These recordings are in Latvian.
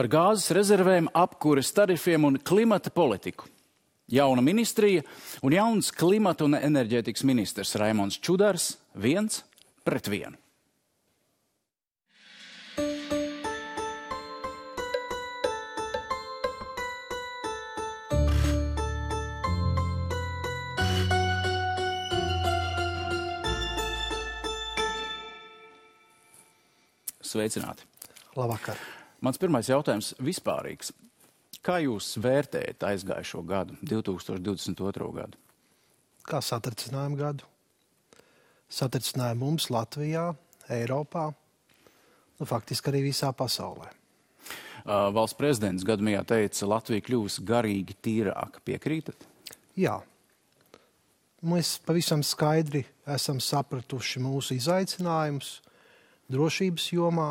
Par gāzes rezervēm, apkures tarifiem un klimata politiku. Jauna ministrija un jauns klimata un enerģētikas ministrs Raimonds Čudars 1-1. Sveicināti. Labvakar. Mans pirmais jautājums vispārīgs. Kā jūs vērtējat aizgājušo gadu, 2022. gadu? Kā satricinājumu gadu? Satricinājumu mums Latvijā, Eiropā, faktiski arī visā pasaulē. Valsts prezidents gadījumā teica, Latvija kļūs garīgi tīrāka. Piekrītat? Jā. Mēs pavisam skaidri esam sapratuši mūsu izaicinājumus drošības jomā,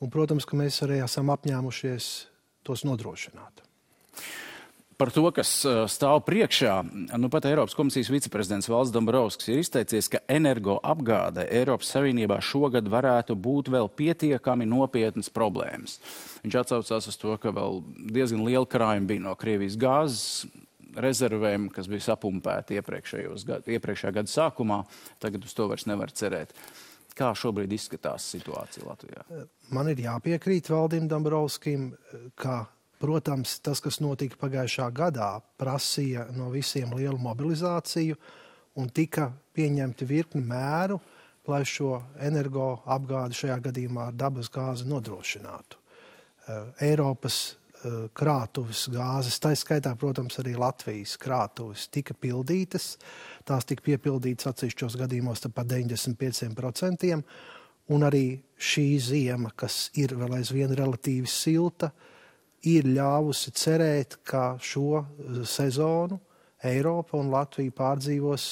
un, protams, ka mēs arī esam apņēmušies tos nodrošināt. Par to, kas stāv priekšā, pat Eiropas komisijas viceprezidents Valdis Dombrovskis ir izteicies, ka energoapgāde Eiropas Savienībā šogad varētu būt vēl pietiekami nopietnas problēmas. Viņš atsaucās uz to, ka vēl diezgan liela krājuma bija no Krievijas gāzes rezervēm, kas bija sapumpēti iepriekšējā gada sākumā. Tagad uz to vairs nevar cerēt. Kā šobrīd izskatās situācija Latvijā? Man ir jāpiekrīt Valdim Dombrovskim, ka, protams, tas, kas notika pagājušā gadā, prasīja no visiem lielu mobilizāciju un tika pieņemti virkni mēru, lai šo energoapgādi šajā gadījumā ar dabas gāzi nodrošinātu. Eiropas krātuves gāzes, tā skaitā, protams, arī Latvijas krātuves tika pildītas. Tās tika piepildītas atsevišķos gadījumos par 95%, un arī šī ziema, kas ir vēl aizvien relatīvi silta, ir ļāvusi cerēt, ka šo sezonu Eiropa un Latvija pārdzīvos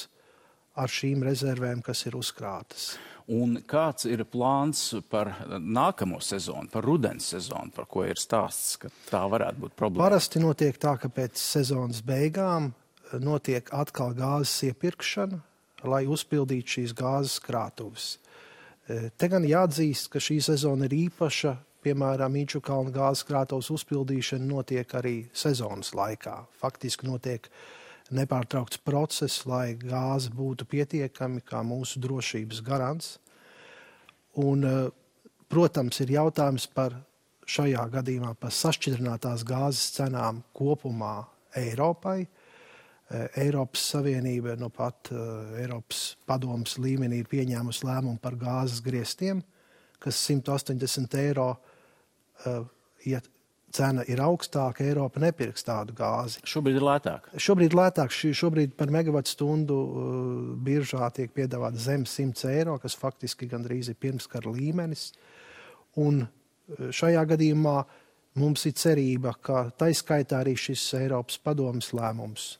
ar šīm rezervēm, kas ir uzkrātas. Un kāds ir plāns par nākamo sezonu, par rudens sezonu, par ko ir stāsts, ka tā varētu būt problēma? Parasti notiek tā, ka pēc sezonas beigām notiek atkal gāzes iepirkšana, lai uzpildītu šīs gāzes krātuves. Te gan jāatzīst, ka šī sezona ir īpaša, piemēram, Inčukalna gāzes krātuves uzpildīšana notiek arī sezonas laikā. Faktiski notiek nepārtraukts process, lai gāze būtu pietiekami kā mūsu drošības garants. Un, protams, ir jautājums par šajā gadījumā par sašķidrinātās gāzes cenām kopumā Eiropai. Eiropas Savienība pat Eiropas padomes līmenī ir pieņēmusi lēmumu par gāzes griestiem, kas 180 eiro, ja cena ir augstāka, Eiropa nepirks tādu gāzi. Šobrīd ir lētāk? Šobrīd lētāk. Šobrīd par megavatstundu biržā tiek piedāvāt zem 100 eiro, kas faktiski gandrīz ir pirmskara līmenis. Un šajā gadījumā mums ir cerība, ka taiskaitā arī šis Eiropas padomes lēmums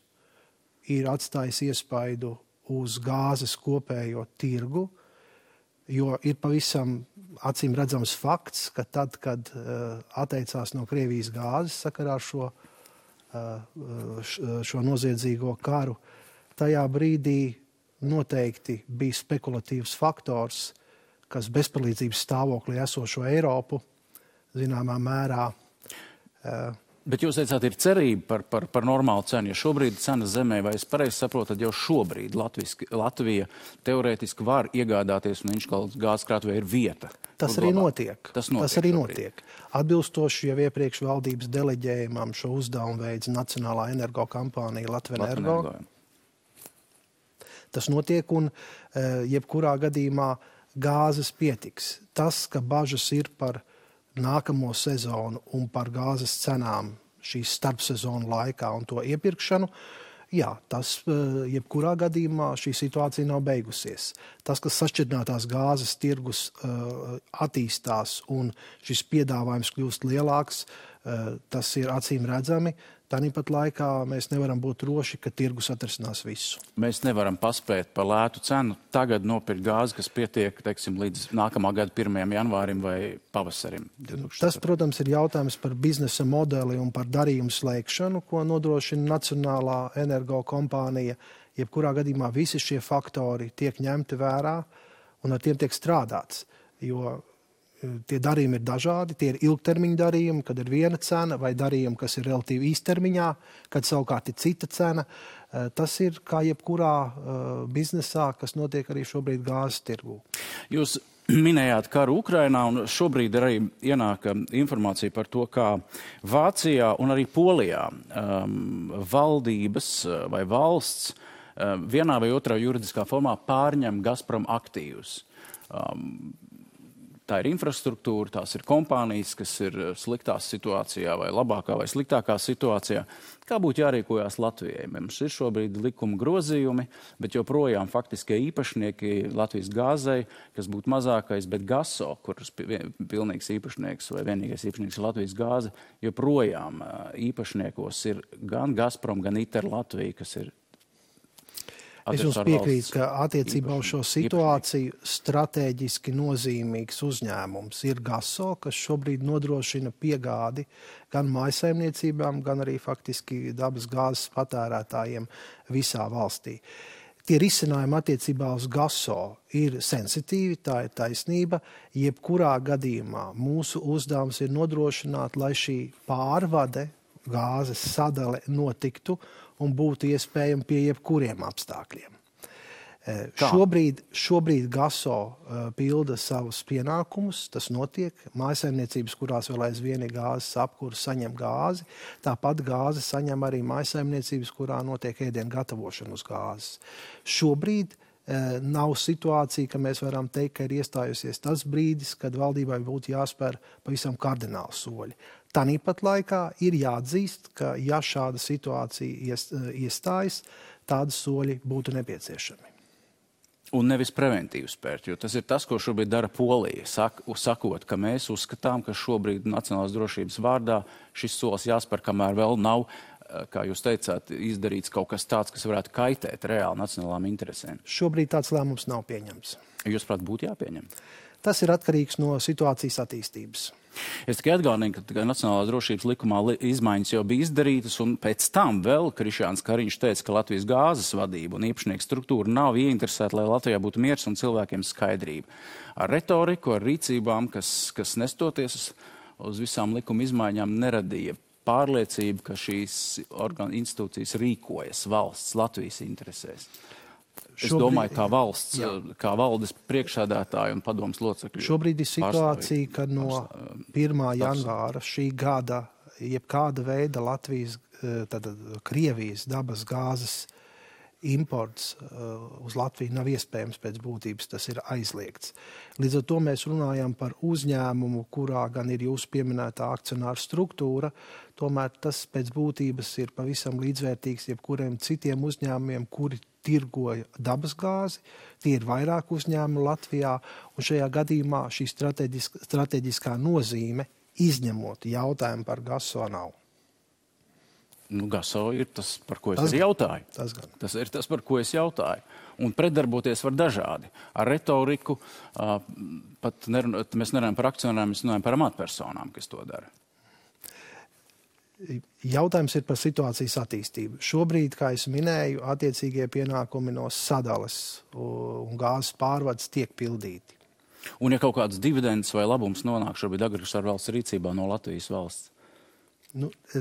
ir atstājis iespaidu uz gāzes kopējo tirgu, jo ir pavisam acīm redzams fakts, ka tad, kad atteicās no Krievijas gāzes sakarā ar šo noziedzīgo karu, tajā brīdī noteikti bija spekulatīvs faktors, kas bezpalīdzības stāvoklī esošo Eiropu zināmā mērā. Bet jūs teicāt, ir cerība par normālu cenu, jo šobrīd cena zemē, vai es pareizi saprotu, tad jau šobrīd Latvija teorētiski var iegādāties un Inčukalnas gāzes krātuvē ir vieta. Tas arī notiek. Tas arī notiek. Atbilstoši jau iepriekš valdības deleģējumam šo uzdevumu veids Nacionālā energokampānija Latvenergo. Tas notiek un jebkurā gadījumā gāzes pietiks. Tas, ka bažas ir par nākamo sezonu un par gāzes cenām šīs starpsezonu laikā un to iepirkšanu, jā, tas jebkurā gadījumā šī situācija nav beigusies. Tas, ka sašķidrinātās gāzes tirgus attīstās un šis piedāvājums kļūst lielāks, tas ir acīm redzami. Tāpat laikā mēs nevaram būt droši, ka tirgus atrisinās visu. Mēs nevaram paspēt par lētu cenu tagad nopirkt gāzi, kas pietiek, teiksim, līdz nākamā gada 1. janvārim vai pavasarim. 2004. Tas, protams, ir jautājums par biznesa modeli un par darījumu slēgšanu, ko nodrošina Nacionālā energokompānija. Jebkurā gadījumā visi šie faktori tiek ņemti vērā un ar tiem tiek strādāts. Jo Tie darījumi ir dažādi, tie ir ilgtermiņa darījumi, kad ir viena cena, vai darījumi, kas ir relatīvi īstermiņā, kad savukārt ir cita cena. Tas ir kā jebkurā biznesā, kas notiek arī šobrīd gāzes tirgū. Jūs minējāt karu Ukrainā, un šobrīd arī ienāk informācija par to, kā Vācijā un arī Polijā valdības vai valsts vienā vai otrā juridiskā formā pārņem Gazprom aktīvus. Tā ir infrastruktūra, tās ir kompānijas, kas ir sliktā situācijā vai labākā vai sliktākā situācijā. Kā būtu jārīkojās Latvijai? Mums ir šobrīd likuma grozījumi, bet joprojām faktiskie īpašnieki Latvijas gāzei, kas būtu mazākais, bet Gaso, kuras pilnīgs īpašnieks vai vienīgais īpašnieks ir Latvijas gāze, joprojām īpašniekos ir gan Gazprom, gan ITER Latvija, kas ir Es jums piekrītu, ka attiecībā uz šo situāciju strateģiski nozīmīgs uzņēmums ir Gaso, kas šobrīd nodrošina piegādi gan mājsaimniecībām, gan arī faktiski dabas gāzes patērētājiem visā valstī. Tie risinājumi attiecībā uz Gaso ir sensitīvi, tā ir taisnība. Jebkurā gadījumā mūsu uzdevums ir nodrošināt, lai šī pārvade, gāzes sadale notiktu un būtu iespējami pie jebkuriem apstākļiem. Šobrīd Gaso pilda savus pienākumus, tas notiek. Mājsaimniecības, kurās vēl aizvien ir gāzes apkure, saņem gāzi. Tāpat gāzi saņem arī mājsaimniecības, kurā notiek ēdienu gatavošana uz gāzes. Šobrīd nav situācija, ka mēs varam teikt, ka ir iestājusies tas brīdis, kad valdībai būtu jāspēr pavisam kardināli soļi. Tāpat laikā ir jāatzīst, ka ja šāda situācija iestājas, tādi soļi būtu nepieciešami. Un nevis preventīvi spērt, jo tas ir tas, ko šobrīd dara Polija, sakot, ka mēs uzskatām, ka šobrīd nacionālās drošības vārdā šis solis jāspēr, kamēr vēl nav, kā jūs teicāt, izdarīts kaut kas tāds, kas varētu kaitēt reāli nacionālām interesēm. Šobrīd tāds lēmums nav pieņemts. Jūs, prāt, būtu jāpieņem? Tas ir atkarīgs no situācijas attīstības. Es tikai atgādinu, ka Nacionālās drošības likumā izmaiņas jau bija izdarītas, un pēc tam vēl Krišjāns Kariņš teica, ka Latvijas gāzes vadība un īpašnieku struktūra nav ieinteresēta, lai Latvijā būtu miers un cilvēkiem skaidrība. Ar retoriku, ar rīcībām, kas nestoties uz visām likuma izmaiņām, neradīja pārliecību, ka šīs institūcijas rīkojas valsts Latvijas interesēs. Es domāju, kā valsts, kā valdes priekšsēdētāji un padomas locekļi. Šobrīd ir situācija, ka no 1. janvāra šī gada jebkāda veida Latvijas, Krievijas dabas gāzes imports uz Latviju nav iespējams pēc būtības, tas ir aizliegts. Līdz ar to mēs runājam par uzņēmumu, kurā gan ir jūsu pieminētā akcionāra struktūra, tomēr tas pēc būtības ir pavisam līdzvērtīgs jebkuriem citiem uzņēmumiem, kuri tirgoja dabas gāzi. Tie ir vairāk uzņēmumi Latvijā, un šajā gadījumā šī strateģiskā nozīme, izņemot jautājumu par Gaso, nav. Gaso ir tas, par ko es jautāju. Tas ir tas, par ko es jautāju. Un pretdarboties var dažādi. Ar retoriku mēs nerunājam par akcionāriem, mēs runājam par amatpersonām, kas to dara. Jautājums ir par situācijas attīstību. Šobrīd, kā es minēju, attiecīgie pienākumi no sadales un gāzes pārvades tiek pildīti. Un ja kaut kāds dividends vai labums nonāk šobrīd agresoru valsts rīcībā no Latvijas valsts?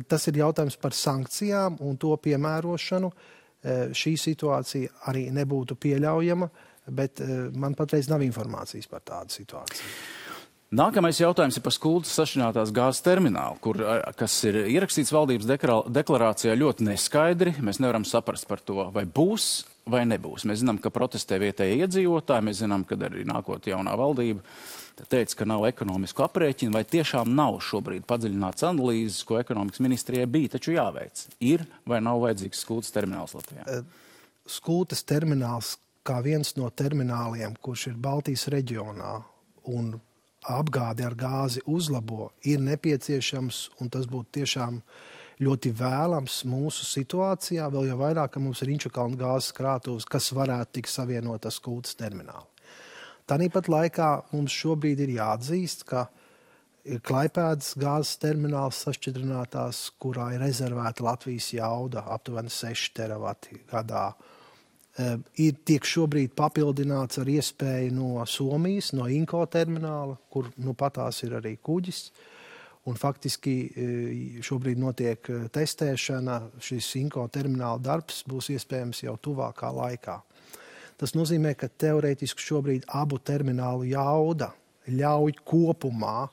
Tas ir jautājums par sankcijām un to piemērošanu. Šī situācija arī nebūtu pieļaujama, bet man patreiz nav informācijas par tādu situāciju. Nākamais jautājums ir par Skultas sašķidrinātās gāzes terminālu, kas ir ierakstīts valdības deklarācijā ļoti neskaidri. Mēs nevaram saprast par to, vai būs vai nebūs. Mēs zinām, ka protestē vietējie iedzīvotāji, mēs zinām, ka arī nākot jaunā valdība teica, ka nav ekonomisku aprēķinu, vai tiešām nav šobrīd padziļināts analīzes, ko ekonomikas ministrijai bija, taču jāveic. Ir vai nav vajadzīgs Skultas termināls Latvijā? Skultas termināls kā viens no termināliem, kurš ir Baltijas reģionā un apgādi ar gāzi uzlabo, ir nepieciešams, un tas būtu tiešām ļoti vēlams mūsu situācijā, vēl jau vairāk, ka mums ir Inčukalna gāzes krātuves, kas varētu tikt savienot ar Skultas terminālu. Tāpat laikā mums šobrīd ir jāatzīst, ka ir Klaipēdas gāzes termināls sašķidrinātās, kurā ir rezervēta Latvijas jauda aptuveni 6 teravati gadā. tiek šobrīd papildināts ar iespēju no Somijas, no Inko termināla, kur patās ir arī kuģis. Un faktiski šobrīd notiek testēšana, šis Inko termināla darbs būs iespējams jau tuvākā laikā. Tas nozīmē, ka teorētiski šobrīd abu terminālu jauda ļauj kopumā,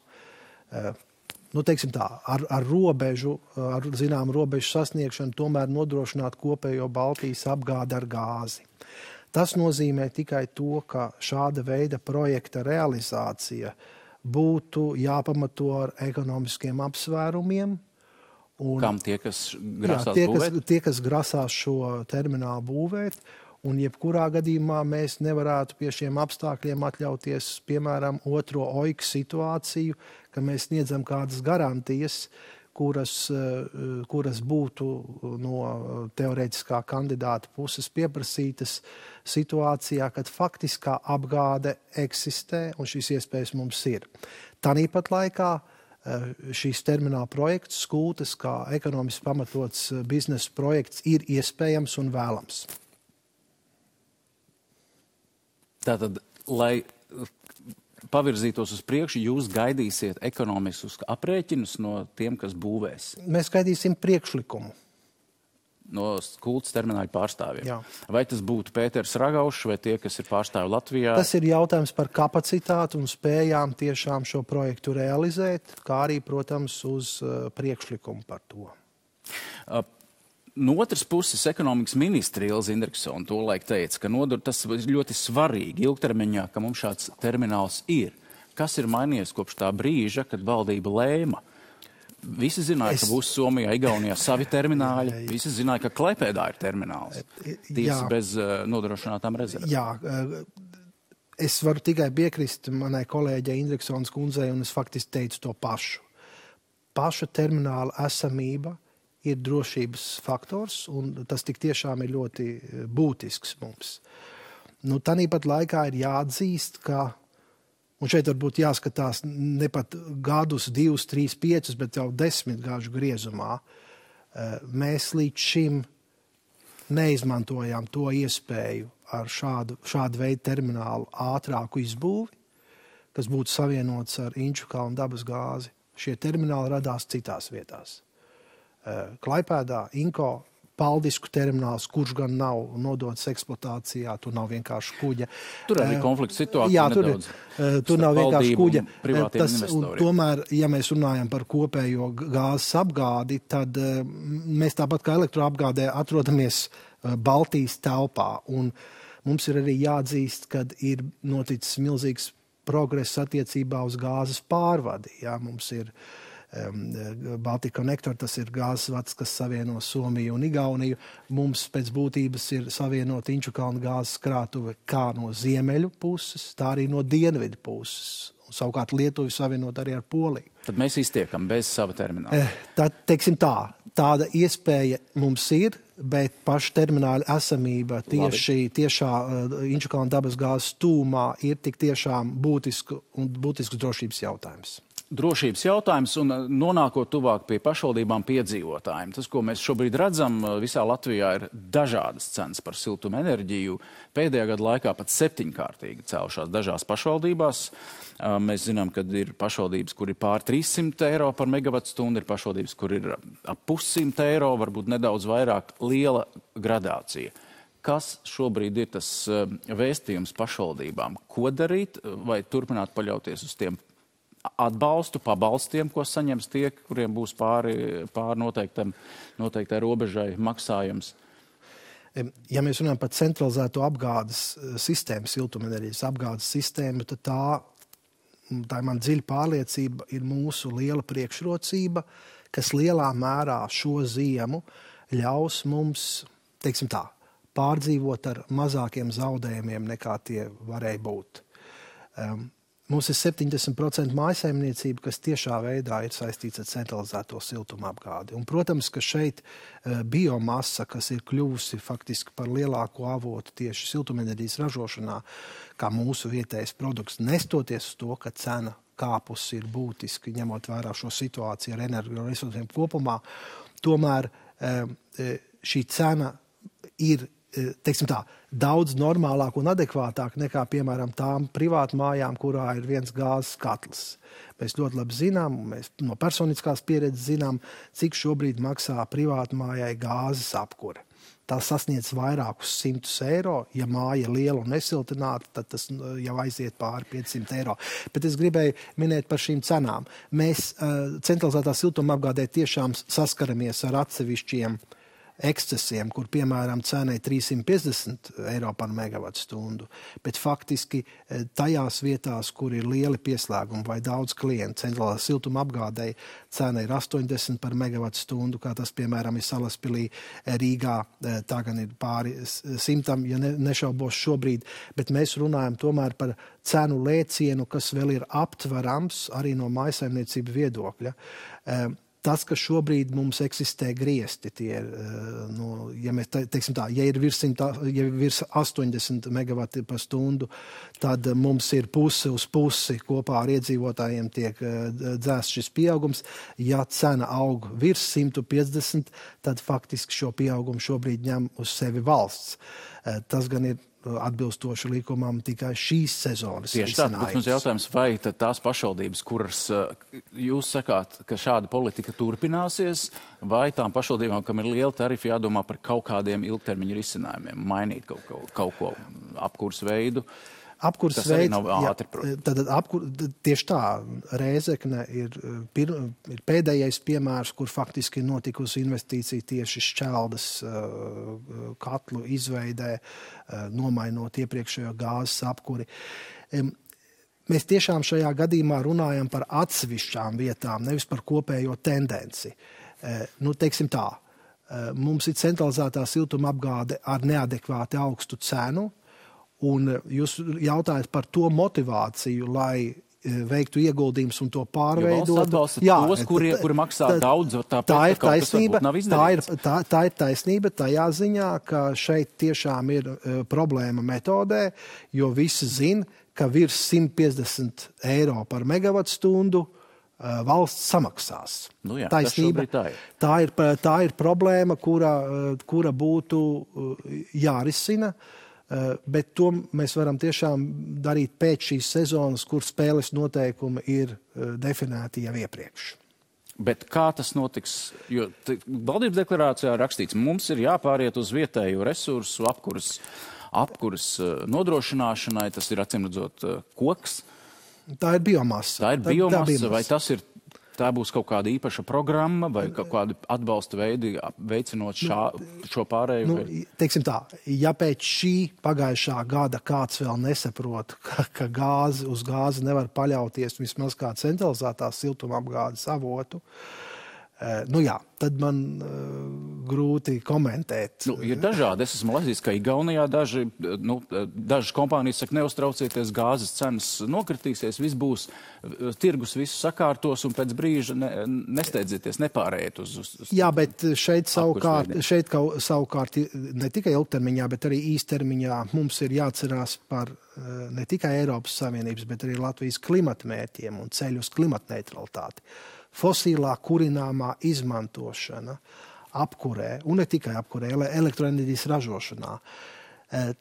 teiksim tā, ar robežu, ar zinām robežu sasniegšanu tomēr nodrošināt kopējo Baltijas apgādi ar gāzi. Tas nozīmē tikai to, ka šāda veida projekta realizācija būtu jāpamato ar ekonomiskiem apsvērumiem. Kam tie, kas grasās būvēt? Tie, kas grasās šo terminālu būvēt. Un jebkurā gadījumā mēs nevarētu pie šiem apstākļiem atļauties, piemēram, otro OIK situāciju, ka mēs sniedzam kādas garantijas, kuras būtu no teorētiskā kandidāta puses pieprasītas situācijā, kad faktiskā apgāde eksistē un šīs iespējas mums ir. Tāpat laikā šīs termināla projekts, Skultes, kā ekonomiski pamatots biznesa projekts, ir iespējams un vēlams. Tātad, lai pavirzītos uz priekšu, jūs gaidīsiet ekonomiskus aprēķinus no tiem, kas būvēs? Mēs gaidīsim priekšlikumu. No Skultes termināļu pārstāvjiem? Jā. Vai tas būtu Pēters Ragaušs vai tie, kas ir pārstāvi Latvijā? Tas ir jautājums par kapacitāti un spējām tiešām šo projektu realizēt, kā arī, protams, uz priekšlikumu par to. No otras puses, ekonomikas ministra Ilze Indriksone tolaik teica, ka tas ir ļoti svarīgi ilgtermiņā, ka mums šāds termināls ir. Kas ir mainījies kopš tā brīža, kad valdība lēma? Visi zināja, ka būs Somijā, Igaunijā savi termināļi. Visi zināja, ka Klaipēdā ir termināls. Tiesa bez nodrošinātām rezervēm. Jā, es varu tikai piekrist manai kolēģei Indriksones kundzei, un es faktiski teicu to pašu. Paša termināla esamība ir drošības faktors, un tas tik tiešām ir ļoti būtisks mums. Tāpat laikā ir jāatzīst, ka, un šeit varbūt jāskatās ne pat gadus, 2, 3, 5, bet jau 10 gadu griezumā, mēs līdz šim neizmantojām to iespēju ar šādu veidu terminālu ātrāku izbūvi, kas būtu savienots ar Inčukalnu dabas gāzi. Šie termināli radās citās vietās. Klaipēdā, Inko, Paldisku termināls, kurš gan nav nodots eksploatācijā, tur nav vienkārši kuģa. Tur arī konflikts situācija jā, nedaudz. Tur nav vienkārši kuģa. Investoriem. Tomēr, ja mēs runājam par kopējo gāzes apgādi, tad mēs tāpat kā elektroapgādē atrodamies Baltijas telpā. Un mums ir arī jāatzīst, kad ir noticis milzīgs progress attiecībā uz gāzes pārvadi. Jā, mums ir Baltica Connector, tas ir gāzes vads, kas savieno Somiju un Igauniju. Mums pēc būtības ir savienot Inčukalnu gāzes krātuve kā no ziemeļu puses, tā arī no dienvidu puses. Un savukārt Lietuvi savienot arī ar Poliju. Tad mēs iztiekam bez sava termināla. Tad, teiksim tā, tāda iespēja mums ir, bet paša termināla esamība tiešā Inčukalnu dabas gāzes tūmā ir tik tiešām būtisks drošības jautājums. Drošības jautājums un nonākot tuvāk pie pašvaldībām piedzīvotājiem. Tas, ko mēs šobrīd redzam, visā Latvijā ir dažādas cenas par siltuma enerģiju. Pēdējā gada laikā pat 7-kārtīgi cēlušās dažās pašvaldībās. Mēs zinām, ka ir pašvaldības, kur ir pār 300 eiro par megavatstundu, ir pašvaldības, kur ir ap 100 eiro, varbūt nedaudz vairāk, liela gradācija. Kas šobrīd ir tas vēstījums pašvaldībām? Ko darīt vai turpināt paļauties uz tiem pabalstiem, ko saņems tie, kuriem būs pāri noteiktai robežai maksājums? Ja mēs runājam par centralizēto apgādes sistēmu, siltumenerģijas apgādes sistēmu, tad tā ir man dziļa pārliecība, ir mūsu liela priekšrocība, kas lielā mērā šo ziemu ļaus mums, teiksim tā, pārdzīvot ar mazākiem zaudējumiem, nekā tie varēja būt. Mums ir 70% mājasaimniecība, kas tiešā veidā ir saistīts ar centralizēto siltuma apgādi. Un, protams, ka šeit biomasa, kas ir kļuvusi faktiski par lielāko avotu tieši siltumenerģijas ražošanā, kā mūsu vietējais produkts, nestoties uz to, ka cena kāpusi ir būtiski, ņemot vērā šo situāciju ar energoresursiem kopumā, tomēr šī cena ir teiksim tā, daudz normālāk un adekvātāk nekā, piemēram, tām privātmājām, kurā ir viens gāzes katls. Mēs ļoti labi zinām, mēs no personiskās pieredzes zinām, cik šobrīd maksā privātmājai gāzes apkure. Tā sasniedz vairākus 100 eiro. Ja māja ir liela un nesiltināta, tad tas jau aiziet pāri 500 eiro. Bet es gribēju minēt par šīm cenām. Mēs centralizētā siltumapgādē tiešām saskaramies ar atsevišķiem ekscesiem, kur, piemēram, cena ir 350 eiro par megavatu stundu, bet faktiski tajās vietās, kur ir lieli pieslēgumi vai daudz klientu, centrālā siltuma apgādēji cena ir 80 par megavatu stundu, kā tas, piemēram, ir Salaspilī, Rīgā, tā gan ir pāri 100, ja nešaubos šobrīd, bet mēs runājam tomēr par cenu lēcienu, kas vēl ir aptverams arī no mājsaimniecību viedokļa. Tas, ka šobrīd mums eksistē griesti, tie ir, ja mēs teiksim tā, ja ir virs 80 megavati par stundu, tad mums ir pusi uz pusi kopā ar iedzīvotājiem tiek dzēsts šis pieaugums. Ja cena aug virs 150, tad faktiski šo pieaugumu šobrīd ņem uz sevi valsts. Tas gan ir atbilstoši likumam tikai šīs sezonas. Tieši tā, bet mums jautājums, vai tās pašvaldības, kuras jūs sakāt, ka šāda politika turpināsies, vai tām pašvaldībām, kam ir liela tarifa, jādomā par kaut kādiem ilgtermiņa risinājumiem, mainīt kaut ko apkurs veidu? Apkurs tas arī nav ātri, tieši tā, Rēzekne ir pēdējais piemērs, kur faktiski ir notikusi investīcija tieši Šķeldas katlu izveidē, nomainot iepriekšējo gāzes apkuri. Mēs tiešām šajā gadījumā runājam par atsevišķām vietām, nevis par kopējo tendenci. Teiksim tā, mums ir centralizētā siltuma apgāde ar neadekvāti augstu cenu, un jūs jautājat par to motivāciju, lai veiktu ieguldījumus un to pārveidot. Tos, kuri maksā daudz, tā ir taisnība. Tā ir taisnība tajā ziņā, ka šeit tiešām ir problēma metodē, jo visi zina, ka virs 150 eiro par megavatu stundu valsts samaksās. Taisnība. Tā ir problēma, kura būtu jārisina. Bet to mēs varam tiešām darīt pēc šīs sezonas, kur spēles noteikumi ir definēti jau iepriekš. Bet kā tas notiks? Jo valdības deklarācijā rakstīts, mums ir jāpāriet uz vietēju resursu apkuras nodrošināšanai, tas ir acīmredzot koks. Tā ir biomasa. Vai tā būs kaut kāda īpaša programma vai kaut kādi atbalsta veidi veicinot šo pārēju? Teiksim tā, ja pēc šī pagājušā gada kāds vēl nesaprot, ka uz gāzi nevar paļauties vismaz kā centralizētā siltumapgādes avotu, tad man grūti komentēt. Ir dažādi. Es esmu lasījis, ka Igaunijā dažas kompānijas saka, neuztraucieties, gāzes cenas nokritīsies, viss būs, tirgus visu sakārtos un pēc brīža nesteidzieties, nepārējiet uz Jā, bet šeit savukārt ne tikai ilgtermiņā, bet arī īstermiņā mums ir jāatcerās par ne tikai Eiropas Savienības, bet arī Latvijas klimatmērķiem un ceļu uz klimatneitralitāti. Fosilā kurināmā izmantošana apkurē, un ne tikai apkurē, elektroenerģijas ražošanā.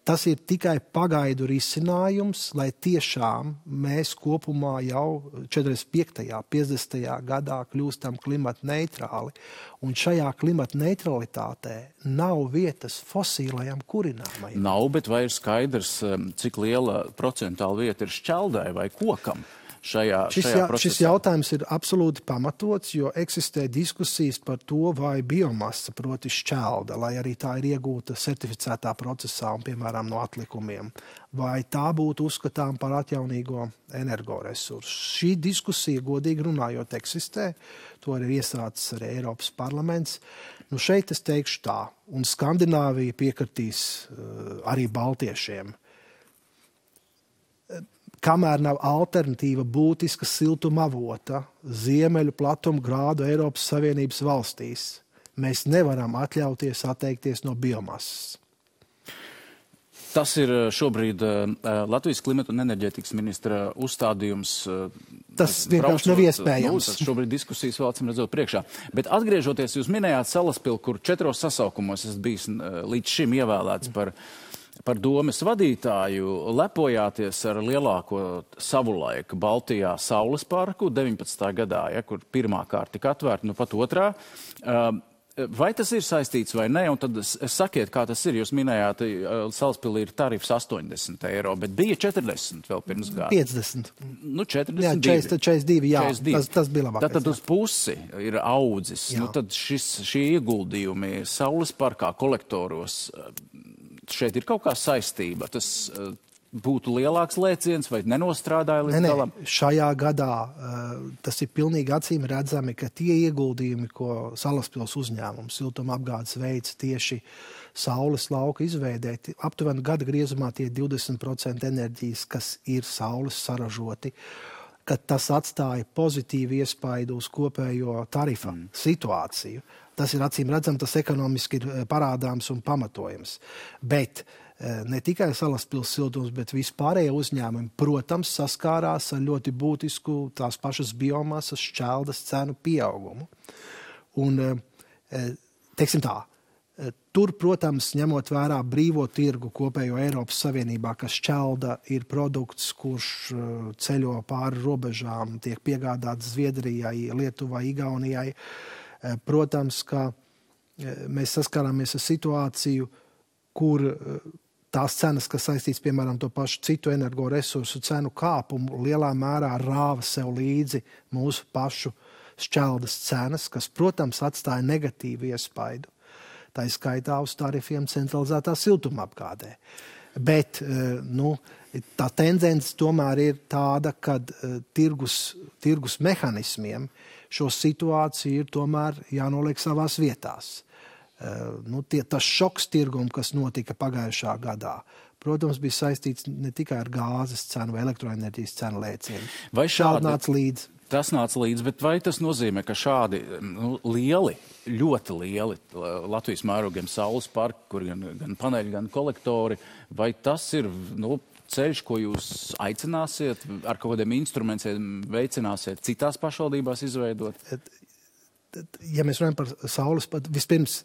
Tas ir tikai pagaidu risinājums, lai tiešām mēs kopumā jau 45. 50. gadā kļūstam klimatneitrāli, un šajā klimatneutralitātē nav vietas fosilajam kurināmajam. Nav, bet vai ir skaidrs, cik liela procentāla vieta ir šķeldai vai kokam? Šis jautājums ir absolūti pamatots, jo eksistē diskusijas par to, vai biomasa, proti šķelda, lai arī tā ir iegūta certificētā procesā un, piemēram, no atlikumiem, vai tā būtu uzskatām par atjaunīgo energoresursu. Šī diskusija, godīgi runājot, eksistē. To ir iesācis arī Eiropas parlaments. Šeit es teikšu tā, un Skandināvija piekritīs arī baltiešiem. Kamēr nav alternatīva būtiska siltuma avota ziemeļu platuma grādu Eiropas Savienības valstīs, mēs nevaram atļauties atteikties no biomasas. Tas ir šobrīd Latvijas klimata un enerģētikas ministra uzstādījums Tas vienkārši nav iespējams. Tas šobrīd diskusijas vēl acīm redzot priekšā. Bet atgriežoties, jūs minējāt Salaspili, kur 4 sasaukumos esat bijis līdz šim ievēlēts par domes vadītāju, lepojāties ar lielāko savulaik Baltijā Saules parku 19. gadā, kur pirmā kārta tika atvērta, nu pat otrā. Vai tas ir saistīts vai ne? Un tad sakiet, kā tas ir. Jūs minējāt, Salaspilī ir tarifs 80 eiro, bet bija 40 vēl pirms gada. 50. Nu, 42. Jā, 42, jā. 42. Tas bija labākais. Tad uz pusi ir audzis. Nu, tad šie ieguldījumi Saules parkā, kolektoros, šeit ir kaut kā saistība. Tas būtu lielāks lēciens vai nenostrādāja līdz galam? Šajā gadā tas ir pilnīgi acīm redzami, ka tie ieguldījumi, ko Salaspils uzņēmums siltumapgādes veids tieši saules lauka izveidēt, aptuveni gada griezumā tie 20% enerģijas, kas ir saules saražoti, ka tas atstāja pozitīvu iespaidu uz kopējo tarifa situāciju. Tas ir acīm redzam, tas ekonomiski ir parādāms un pamatojams. Bet ne tikai Salaspils siltums, bet vispārējie uzņēmumi, protams, saskārās ar ļoti būtisku tās pašas biomasas šķeldas cenu pieaugumu. Un, teiksim tā, tur, protams, ņemot vērā brīvo tirgu kopējo Eiropas Savienībā, ka šķelda ir produkts, kurš ceļo pāri robežām, tiek piegādāts Zviedrijai, Lietuvai, Igaunijai. Protams, ka mēs saskārāmies ar situāciju, kur tās cenas, kas saistīts, piemēram, to pašu citu energoresursu cenu kāpumu, lielā mērā rāva sev līdzi mūsu pašu šķeldas cenas, kas, protams, atstāja negatīvu iespaidu. Tā ir skaitā uz tarifiem centralizētā siltumapgādē. Bet tā tendence tomēr ir tāda, ka tirgus mehanismiem šo situāciju ir tomēr jānoliek savās vietās. Tas šoks tirgumu, kas notika pagājušā gadā, protams, bija saistīts ne tikai ar gāzes cenu vai elektroenerģijas cenu lēcienu. Vai šādi nāca līdzi? Tas nāca līdzi, bet vai tas nozīmē, ka šādi lieli, ļoti lieli Latvijas mērogiem saules parki, kur gan paneļi, gan kolektori, vai tas ir ceļš, ko jūs aicināsiet, ar kaut kādiem instrumentiem veicināsiet citās pašvaldībās izveidot? Ja mēs runājam par saules parku, vispirms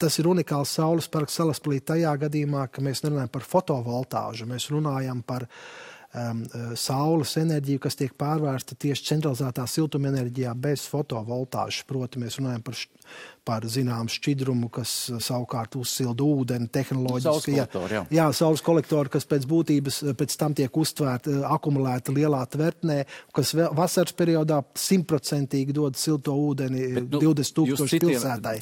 tas ir unikāls saules parks Salaspilī tajā gadījumā, ka mēs nerunājam par fotovoltāžu, mēs runājam par saules enerģiju, kas tiek pārvērsta tieši centralizētā siltumenerģijā bez fotovoltāžas. Proti, mēs runājam par zināmu šķidrumu, kas savukārt uzsilda ūdeni tehnoloģiski. Saules kolektori, kas pēc būtības pēc tam tiek uztvērti, akumulēti lielā tvertnē, kas vasaras periodā 100% dod silto ūdeni 20,000 pilsētai.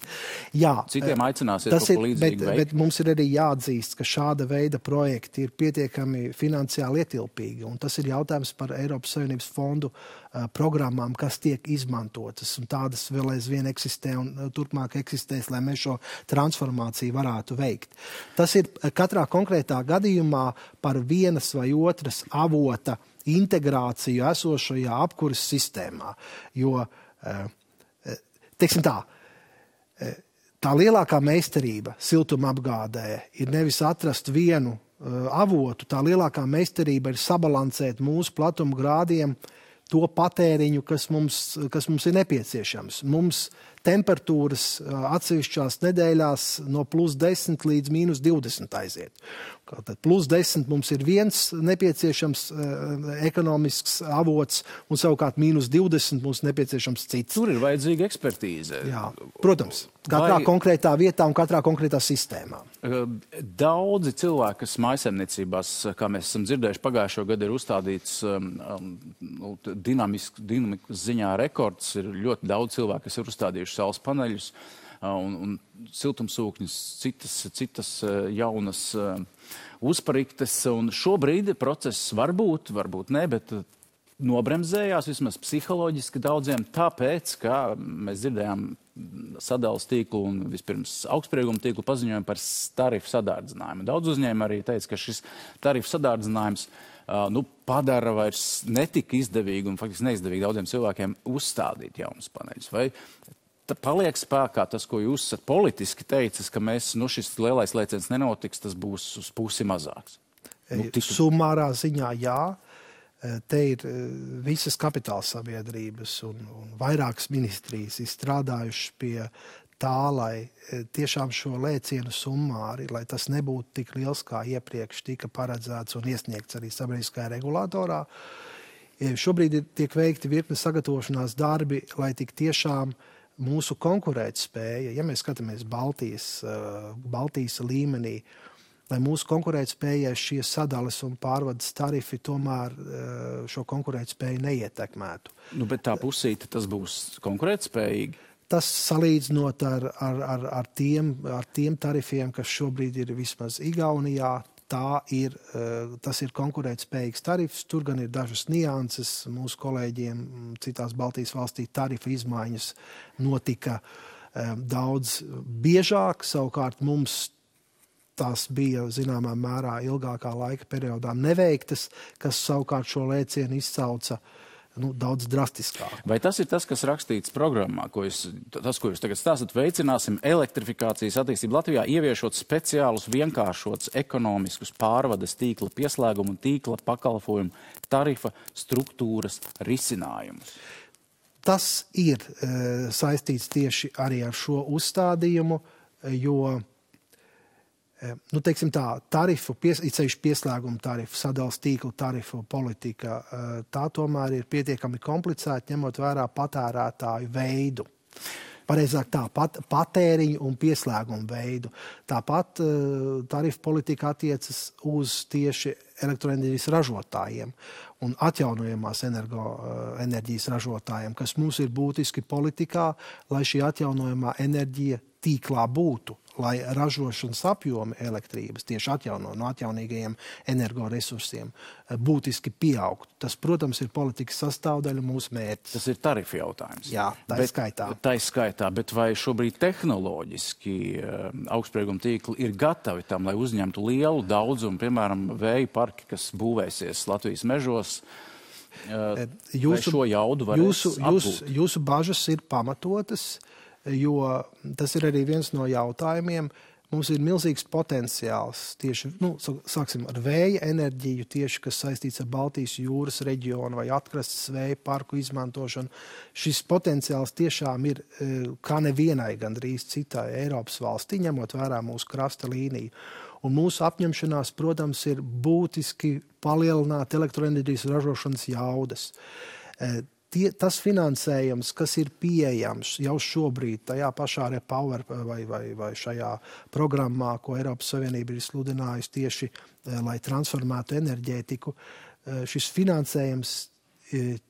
Jā, citiem aicināsiet kaut ko līdzīgi veikt. Bet mums ir arī jāatzīst, ka šāda veida projekti ir pietiekami finansiāli ietilpīgi, un tas ir jautājums par Eiropas Savienības fondu programmām, kas tiek izmantotas, un tādas vēl aizvien eksistē un turpmāk eksistēs, lai mēs šo transformāciju varētu veikt. Tas ir katrā konkrētā gadījumā par vienas vai otras avota integrāciju esošajā apkuras sistēmā. Jo, teiksim tā lielākā meistarība siltumapgādē ir nevis atrast vienu avotu, tā lielākā meistarība ir sabalansēt mūsu platuma grādiem to patēriņu, kas mums ir nepieciešams. Mums temperatūras atsevišķās nedēļās no +10 līdz -20 aiziet. Tad +10 mums ir viens nepieciešams ekonomisks avots, un savukārt -20 mums nepieciešams cits. Tur ir vajadzīga ekspertīze. Jā, protams. Katrā konkrētā vietā un katrā konkrētā sistēmā. Daudzi cilvēki, kas mājasemniecībās, kā mēs esam dzirdējuši, pagājušo gadu ir uzstādīts dinamikas ziņā rekords. Ir ļoti daudz cilvēku, kas ir uzstādījuši saules paneļus un siltumsūkņus, citas jaunas uzpariktes. Un šobrīd process varbūt ne, bet nobremzējās vismaz psiholoģiski daudziem, tāpēc, ka mēs dzirdējām sadales tīklu un vispirms augstsprieguma tīklu paziņojumu par tarifu sadārdzinājumu. Daudz uzņēmumi arī teica, ka šis tarifu sadārdzinājums padara vairs netika izdevīgi un faktiski neizdevīgi daudziem cilvēkiem uzstādīt jaunus paneļus. Vai paliek spēkā tas, ko jūs esat politiski teicis, ka šis lielais lēciens nenotiks, tas būs uz pusi mazāks? Summārā ziņā jā. Te ir visas kapitāla sabiedrības un vairākas ministrijas izstrādājušas pie tā, lai tiešām šo lēcienu summāri, lai tas nebūtu tik liels, kā iepriekš tika paredzēts un iesniegts arī sabiedriskajā regulātorā. Šobrīd tiek veikti virkne sagatavošanās darbi, lai tik tiešām mūsu konkurētspēja, ja mēs skatāmies Baltijas līmenī, lai mūsu konkurētspējai šie sadales un pārvades tarifi tomēr šo konkurētspēju neietekmētu. Bet tā pusīte tas būs konkurētspējīgi? Tas salīdzinot ar tiem tarifiem, kas šobrīd ir vismaz Igaunijā, tas ir konkurētspējīgs tarifs. Tur gan ir dažas nianses. Mūsu kolēģiem citās Baltijas valstī tarifa izmaiņas notika daudz biežāk. Savukārt mums tās bija zināmā mērā ilgākā laika periodā neveiktas, kas savukārt šo lēcienu izcauca daudz drastiskāk. Vai tas ir tas, kas rakstīts programmā, ko jūs tagad stāstat? Veicināsim elektrifikācijas attīstību Latvijā, ieviešot speciālus, vienkāršotus ekonomiskus pārvades tīkla pieslēgumu un tīkla pakalpojumu tarifa struktūras risinājumus. Tas ir saistīts tieši arī ar šo uzstādījumu, jo teiksim tā, tarifu, ceļš pieslēgumu tarifu, sadales tīklu tarifu politika, tā tomēr ir pietiekami komplicēta, ņemot vērā patērētāju veidu. Pareizāk tā, patēriņu un pieslēgumu veidu. Tāpat tarifu politika attiecas uz tieši elektroenerģijas ražotājiem un atjaunojamās enerģijas ražotājiem, kas mums ir būtiski politikā, lai šī atjaunojamā enerģija tīklā būtu, lai ražošanas apjomi elektrības tieši no atjaunīgajiem energoresursiem būtiski pieaugtu. Tas, protams, ir politikas sastāvdaļa mūsu mērķis. Tas ir tarifu jautājums. Jā, tā skaitā. Bet vai šobrīd tehnoloģiski augstsprieguma tīkli ir gatavi tam, lai uzņemtu lielu daudzumu, piemēram, vēja parki, kas būvēsies Latvijas mežos? Vai šo jaudu varēs apgūt? Jūsu bažas ir pamatotas, jo tas ir arī viens no jautājumiem. Mums ir milzīgs potenciāls tieši, sāksim ar vēja enerģiju, tieši kas saistīts ar Baltijas jūras reģionu vai atkrastes vēja parku izmantošanu. Šis potenciāls tiešām ir kā nevienai gandrīz citai Eiropas valstī, ņemot vērā mūsu krasta līniju. Un mūsu apņemšanās, protams, ir būtiski palielināt elektroenerģijas ražošanas jaudas. Tas finansējums, kas ir pieejams jau šobrīd tajā pašā Repower vai šajā programmā, ko Eiropas Savienība ir sludinājusi tieši, lai transformētu enerģētiku, šis finansējums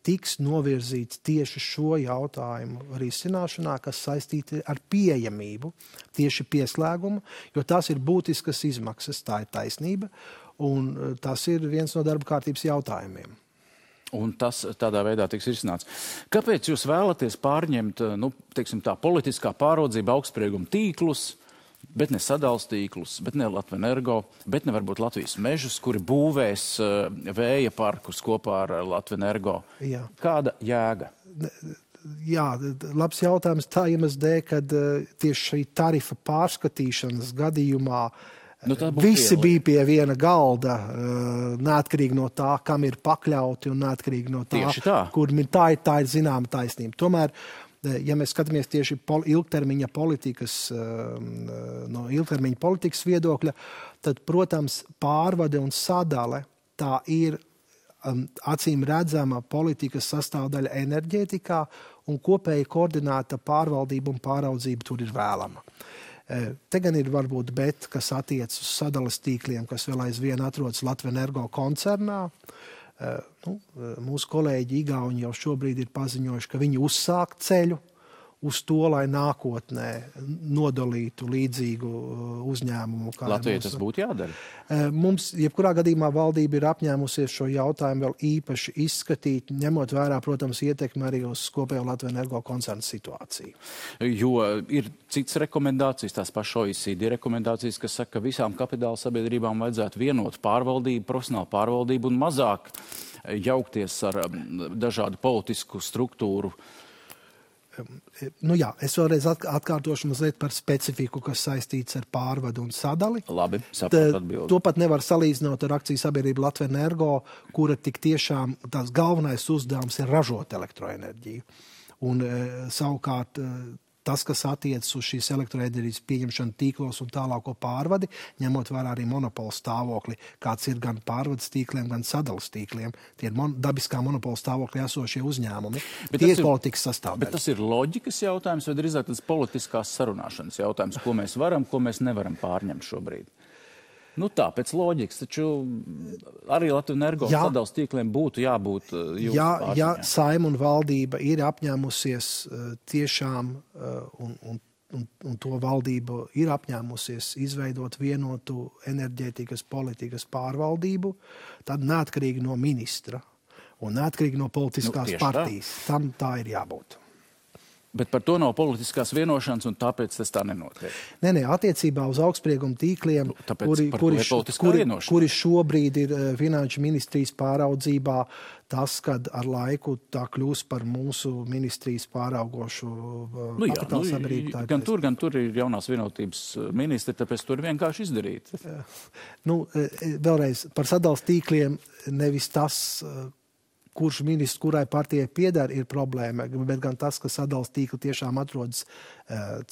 tiks novirzīts tieši šo jautājumu risināšanā, kas saistīti ar pieejamību, tieši pieslēgumu, jo tās ir būtiskas izmaksas, tā ir taisnība, un tas ir viens no darba kārtības jautājumiem. Un tas tādā veidā tiks risināts. Kāpēc jūs vēlaties pārņemt, teiksim tā, politiskā pāraudzība augstsprieguma tīklus, bet ne sadales tīklus, bet ne Latvenergo, bet ne varbūt Latvijas mežus, kuri būvēs vēja parkus kopā ar Latvenergo? Jā. Kāda jēga? Jā, labs jautājums tā iemesla dēļ, kad tieši šī tarifa pārskatīšanas gadījumā visi bija pie viena galda, neatkarīgi no tā, kam ir pakļauti un neatkarīgi no tā, kur tā ir zināma taisnība. Tomēr, ja mēs skatāmies tieši ilgtermiņa politikas viedokļa, tad, protams, pārvade un sadale tā ir acīm redzama politikas sastāvdaļa enerģētikā un kopēji koordinēta pārvaldība un pāraudzība tur ir vēlama. Te gan ir varbūt kas attiec uz sadales tīkliem, kas vēl aizvien atrodas Latvenergo koncernā. Mūsu kolēģi Igauni jau šobrīd ir paziņojuši, ka viņi uzsāk ceļu uz to, lai nākotnē nodalītu līdzīgu uzņēmumu. Latvijai tas būtu jādara? Mums, jebkurā gadījumā, valdība ir apņēmusies šo jautājumu vēl īpaši izskatīt, ņemot vērā, protams, ietekmi arī uz kopējo Latvenergo koncernu situāciju. Jo ir citas rekomendācijas, tās pašas OECD rekomendācijas, kas saka, ka visām kapitāla sabiedrībām vajadzētu vienot pārvaldību, profesionālu pārvaldību un mazāk jaukties ar dažādu politisku struktūru Es vēlreiz atkārtošu mazliet par specifiku, kas saistīts ar pārvadu un sadali. Labi, saprotu atbildi. To pat nevar salīdzināt ar akciju sabiedrību Latvijas Energo, kura tik tiešām tās galvenais uzdevums ir ražot elektroenerģiju. Un savukārt tas, kas attiecas uz šīs elektroenerģijas pieņemšanu tīklos un tālāko pārvadi, ņemot vērā arī monopola stāvokli, kāds ir gan pārvades tīkliem, gan sadalas tīkliem. Tie ir dabiskā monopola stāvoklī esošie uzņēmumi. Tie ir politikas sastāvdaļa. Bet tas ir loģikas jautājums, vai drīzāk tas politiskās sarunāšanas jautājums, ko mēs varam, ko mēs nevaram pārņemt šobrīd? Tā, pēc loģikas, taču arī Latvijas Energo sadalas tīkliem būtu jābūt jūsu pārziņā. Ja Saeima un valdība ir apņēmusies tiešām, un to valdība ir apņēmusies izveidot vienotu enerģētikas politikas pārvaldību, tad neatkarīgi no ministra un neatkarīgi no politiskās partijas. Tam tā ir jābūt. Bet par to nav politiskās vienošanas, un tāpēc tas tā nenotiek. Nē, attiecībā uz augstsprieguma tīkliem, kuri šobrīd ir Finanšu ministrijas pāraudzībā, tas, kad ar laiku tā kļūs par mūsu ministrijas pāraugošu kapitāla sabiedrību. Gan tur ir jaunās vienotības ministri, tāpēc tur vienkārši izdarīt. Vēlreiz, par sadalas tīkliem nevis tas, kurš ministrs, kurai partijai pieder, ir problēma, bet gan tas, ka sadalas tīkli tiešām atrodas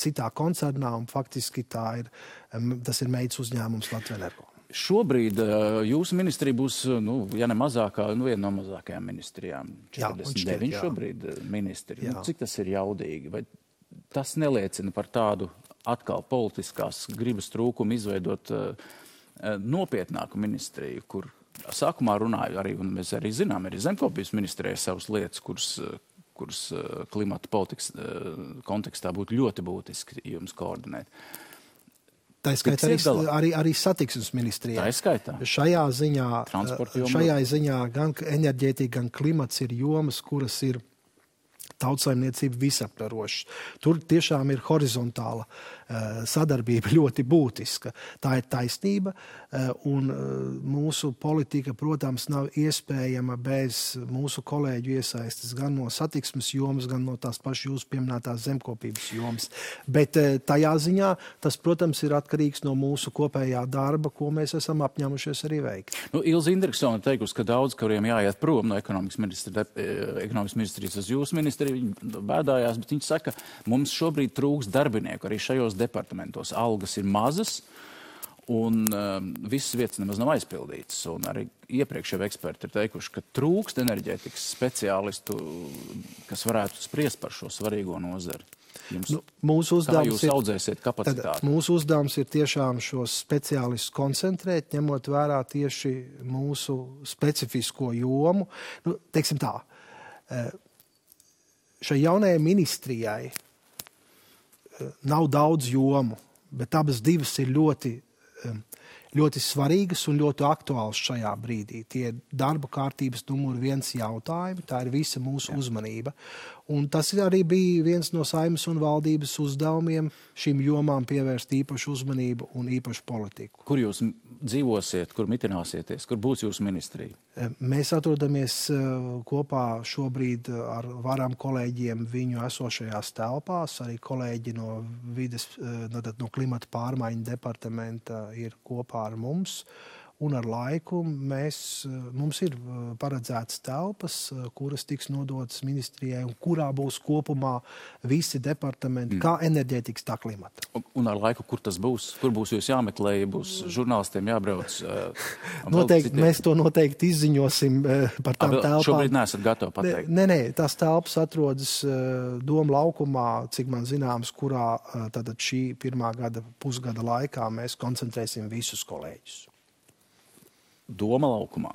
citā koncernā, un faktiski tas ir meitas uzņēmums Latvijas Energo. Šobrīd jūsu ministrija būs, ja ne mazākā, viena no mazākajām ministrijām. 49 šobrīd ministri. Cik tas ir jaudīgi? Vai tas neliecina par tādu atkal politiskās gribas trūkumu izveidot nopietnāku ministriju, kur sākumā runāju arī, un mēs arī zinām, arī zemkopības ministrijai savas lietas, kuras klimata politikas kontekstā būtu ļoti būtiski jums koordinēt. Tā skaitā arī satiksmes ministrijai. Tā skaitā. Šajā ziņā gan enerģētika, gan klimats ir jomas, kuras ir tautsaimniecība visaptvarošas. Tur tiešām ir horizontāla sadarbība ļoti būtiska. Tā ir taisnība, un mūsu politika, protams, nav iespējama bez mūsu kolēģu iesaistes gan no satiksmes jomas, gan no tās pašas jūsu pieminētās zemkopības jomas. Bet tajā ziņā tas, protams, ir atkarīgs no mūsu kopējā darba, ko mēs esam apņēmušies arī veikt. Ilze Indriksone teikusi, ka daudz, kuriem jāiet prom no ekonomikas ministrijas uz jūsu ministriju, viņi bēdājās, bet viņi saka, mums šobrīd trūks darbinieku arī šajos departamentos. Algas ir mazas un visas vietas nemaz nav aizpildītas. Un arī iepriekš jau eksperti ir teikuši, ka trūkst enerģētikas speciālistu, kas varētu spriest par šo svarīgo nozari. Kā jūs audzēsiet kapacitāti? Mūsu uzdevums ir tiešām šos speciālistus koncentrēt, ņemot vērā tieši mūsu specifisko jomu. Teiksim tā, šai jaunajai ministrijai nav daudz jomu, bet abas divas ir ļoti svarīgas un ļoti aktuāls šajā brīdī. Tie ir darba kārtības numur 1 jautājumi, tā ir visa mūsu uzmanība. Un tas arī bija viens no Saeimas un valdības uzdevumiem šīm jomām pievērst īpašu uzmanību un īpašu politiku. Kur jūs dzīvosiet, kur mitināsieties, kur būs jūsu ministrija? Mēs atrodamies kopā šobrīd ar varam kolēģiem viņu esošajās telpās, arī kolēģi no klimata pārmaiņu departamenta ir kopā ar mums. Un ar laiku mums ir paredzētas telpas, kuras tiks nodotas ministrijai un kurā būs kopumā visi departamenti, kā enerģētikas, tā klimata. Un ar laiku, kur tas būs? Kur būs jūs jāmeklē, ja būs žurnālistiem jābrauc? Mēs to noteikti izziņosim par tām telpām. Šobrīd neesat gatavi pateikt? Nē, tās telpas atrodas Doma laukumā, cik man zināms, kurā tātad šī pirmā pusgada laikā mēs koncentrēsim visus kolēģus. Doma laukumā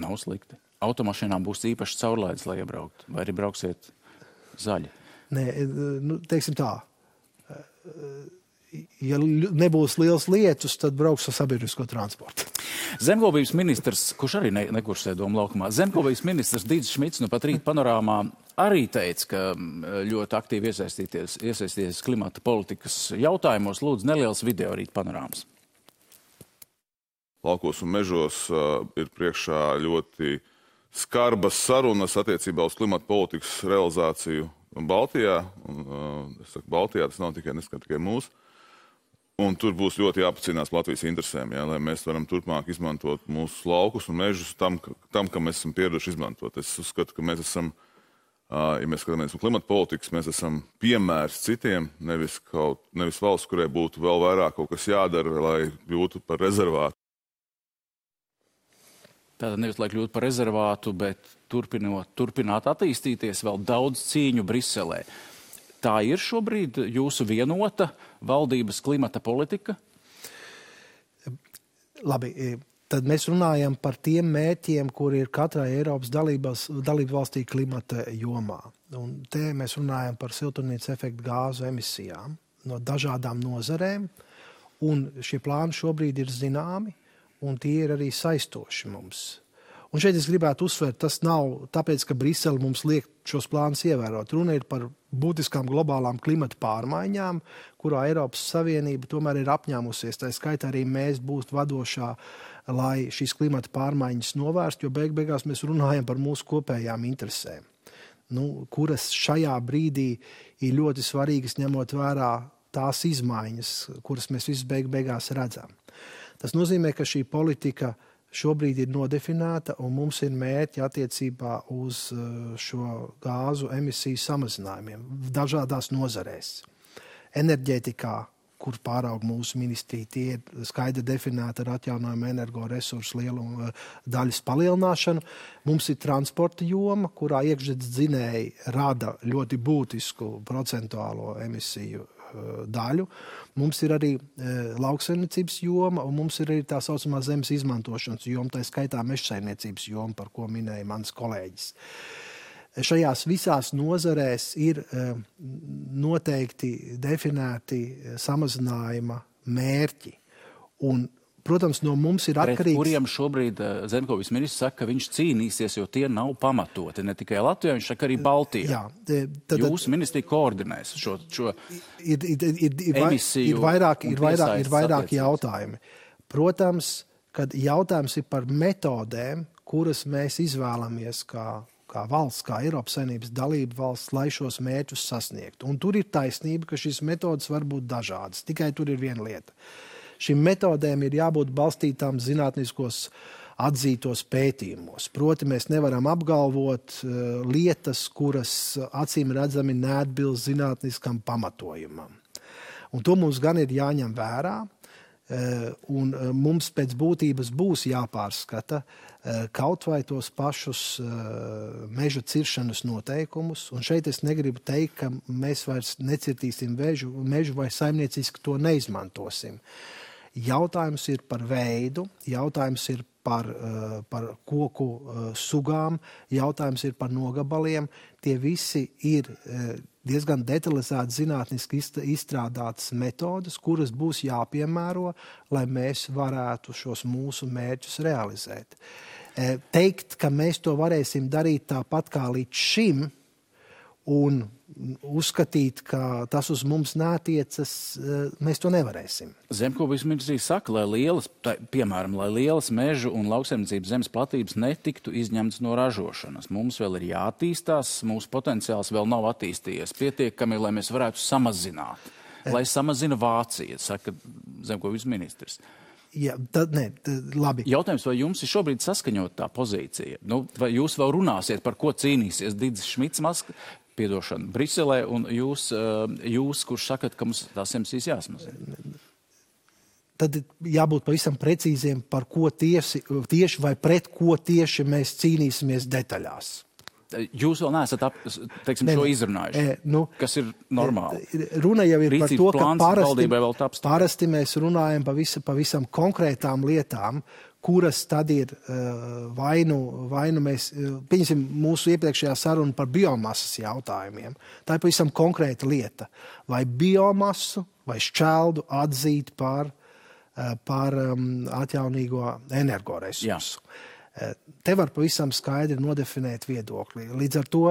nav slikti. Automašīnām būs īpaši caurlaides, lai iebraukt, vai arī brauksiet zaļi? Nē, teiksim tā. Ja nebūs liels lietus, tad brauks ar sabiedrisko transportu. Zemkopības ministrs, kurš arī nekursē Doma laukumā, zemkopības ministrs Dīdzis Šmits pat rīt panorāmā arī teica, ka ļoti aktīvi iesaistīties klimata politikas jautājumos. Lūdzu, neliels video rīt panorāmas. Laukos un mežos ir priekšā ļoti skarbas sarunas attiecībā uz klimata politikas realizāciju Baltijā, un es saku Baltijā, tas nav tikai mūsu. Un tur būs ļoti jāpacīnās Latvijas interesēm, lai mēs varam turpmāk izmantot mūsu laukus un mežus tam, kam mēs esam pieraduši izmantot. Es uzskatu, ka mēs esam, ja mēs skatāmies no klimata politikas, mēs esam piemērs citiem, nevis valsts, kurai būtu vēl vairāk kaut kas jādara, lai kļūtu par rezervātu. Tātad nevis, lai kļūtu par rezervātu, bet turpināt attīstīties, vēl daudz cīņu Briselē. Tā ir šobrīd jūsu vienota valdības klimata politika? Labi, tad mēs runājam par tiem mērķiem, kuri ir katrai Eiropas dalību valstī klimata jomā. Un te mēs runājam par siltumnīcas efekta gāzu emisijām no dažādām nozarēm, un šie plāni šobrīd ir zināmi, un tie ir arī saistoši mums. Un šeit es gribētu uzsvērt, tas nav tāpēc, ka Brisele mums liek šos plānus ievērot. Runa ir par būtiskām globālām klimata pārmaiņām, kurā Eiropas Savienība tomēr ir apņēmusies. Tā skaitā arī mēs būt vadošā, lai šīs klimata pārmaiņas novērst, jo beigās mēs runājam par mūsu kopējām interesēm, kuras šajā brīdī ir ļoti svarīgas, ņemot vērā tās izmaiņas, kuras mēs visi beigās redzam. Tas nozīmē, ka šī politika šobrīd ir nodefinēta, un mums ir mērķi attiecībā uz šo gāzu emisiju samazinājumiem dažādās nozarēs. Enerģētikā, kur pāraug mūsu ministrija, tie ir skaidri definēti ar atjaunojumu energoresursu lielu daļas palielināšanu. Mums ir transporta joma, kurā iekšzemes dzinēji rada ļoti būtisku procentuālo emisiju daļu. Mums ir arī lauksaimniecības joma, un mums ir arī tā saucamā zemes izmantošanas joma, tā skaitā mežsaimniecības joma, par ko minēja mans kolēģis. Šajās visās nozarēs ir noteikti definēti samazinājuma mērķi. Un, protams, no mums ir atkarīgs... Pret kuriem šobrīd Zemkovis ministrs saka, ka viņš cīnīsies, jo tie nav pamatoti. Ne tikai Latvijā, viņš saka arī Baltijā. Jūsu ministrija koordinēs šo emisiju. Ir vairāki jautājumi. Protams, kad jautājums ir par metodēm, kuras mēs izvēlamies kā valsts, kā Eiropas Savienības dalība valsts, lai šos mērķus sasniegtu. Un tur ir taisnība, ka šīs metodas var būt dažādas. Tikai tur ir viena lieta. Šīm metodēm ir jābūt balstītām zinātniskos atzītos pētījumos. Proti, mēs nevaram apgalvot lietas, kuras acīm redzami neatbilst zinātniskam pamatojumam. Un to mums gan ir jāņem vērā, un mums pēc būtības būs jāpārskata kaut vai tos pašus meža ciršanas noteikumus. Un šeit es negribu teikt, ka mēs vairs necirtīsim mežu vai saimnieciski to neizmantosim. Jautājums ir par veidu, jautājums ir par koku sugām, jautājums ir par nogabaliem. Tie visi ir diezgan detalizēti zinātniski izstrādātas metodas, kuras būs jāpiemēro, lai mēs varētu šos mūsu mērķus realizēt. Teikt, ka mēs to varēsim darīt tāpat kā līdz šim, un uzskatīt, ka tas uz mums neatiecas, mēs to nevarēsim. Zemkovis ministrija saka, lai lielas mežu un lauksaimniecības zemes platības netiktu izņemtas no ražošanas. Mums vēl ir jāattīstās, mūsu potenciāls vēl nav attīstījies pietiekami, lai mēs varētu samazināt. Lai samazina Vācija, saka Zemkovis ministrs. Jā, labi. Jautājums, vai jums ir šobrīd saskaņot tā pozīcija? Vai jūs vēl runāsiet, par ko cīnīsies Didis Šmits Briselē, un jūs, kurš sakat, ka mums tās emisijas jāsamazina? Tad jābūt pavisam precīziem, par ko tieši vai pret ko tieši mēs cīnīsimies detaļās. Jūs vēl neesat šo izrunājuši, kas ir normāli. Runa jau ir Rīcības par to, ka parasti mēs runājam pavisam konkrētām lietām, kuras tad ir vainu mēs, pieņemsim mūsu iepriekšējā saruna par biomasas jautājumiem. Tā ir pavisam konkrēta lieta. Vai biomasu vai šķeldu atzīt par atjaunīgo energoresursu. Te var pavisam skaidri nodefinēt viedokli. Līdz ar to